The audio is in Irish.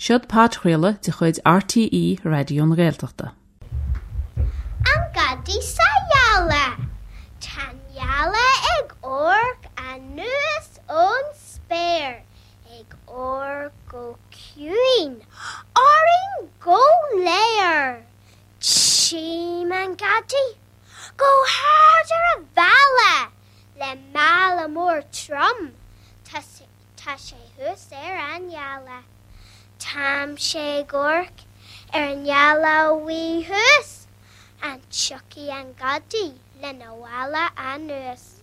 Seod podchraoladh de chuid RTÉ Raidió na Gaeltachta. An Gadaí sa Ghealach. Tá an ghealach ag amharc anuas ón spéir, ag amharc go ciúin orainn go léir. Tchím an gadaí go hard ar an bhalla le mála mór trom. Tá Tá sé thuas ar an ghealach. Táimse ag amharc ar an ngealach bhuí thuas. An dtiocfaidh an gadaí lena mhála anuas?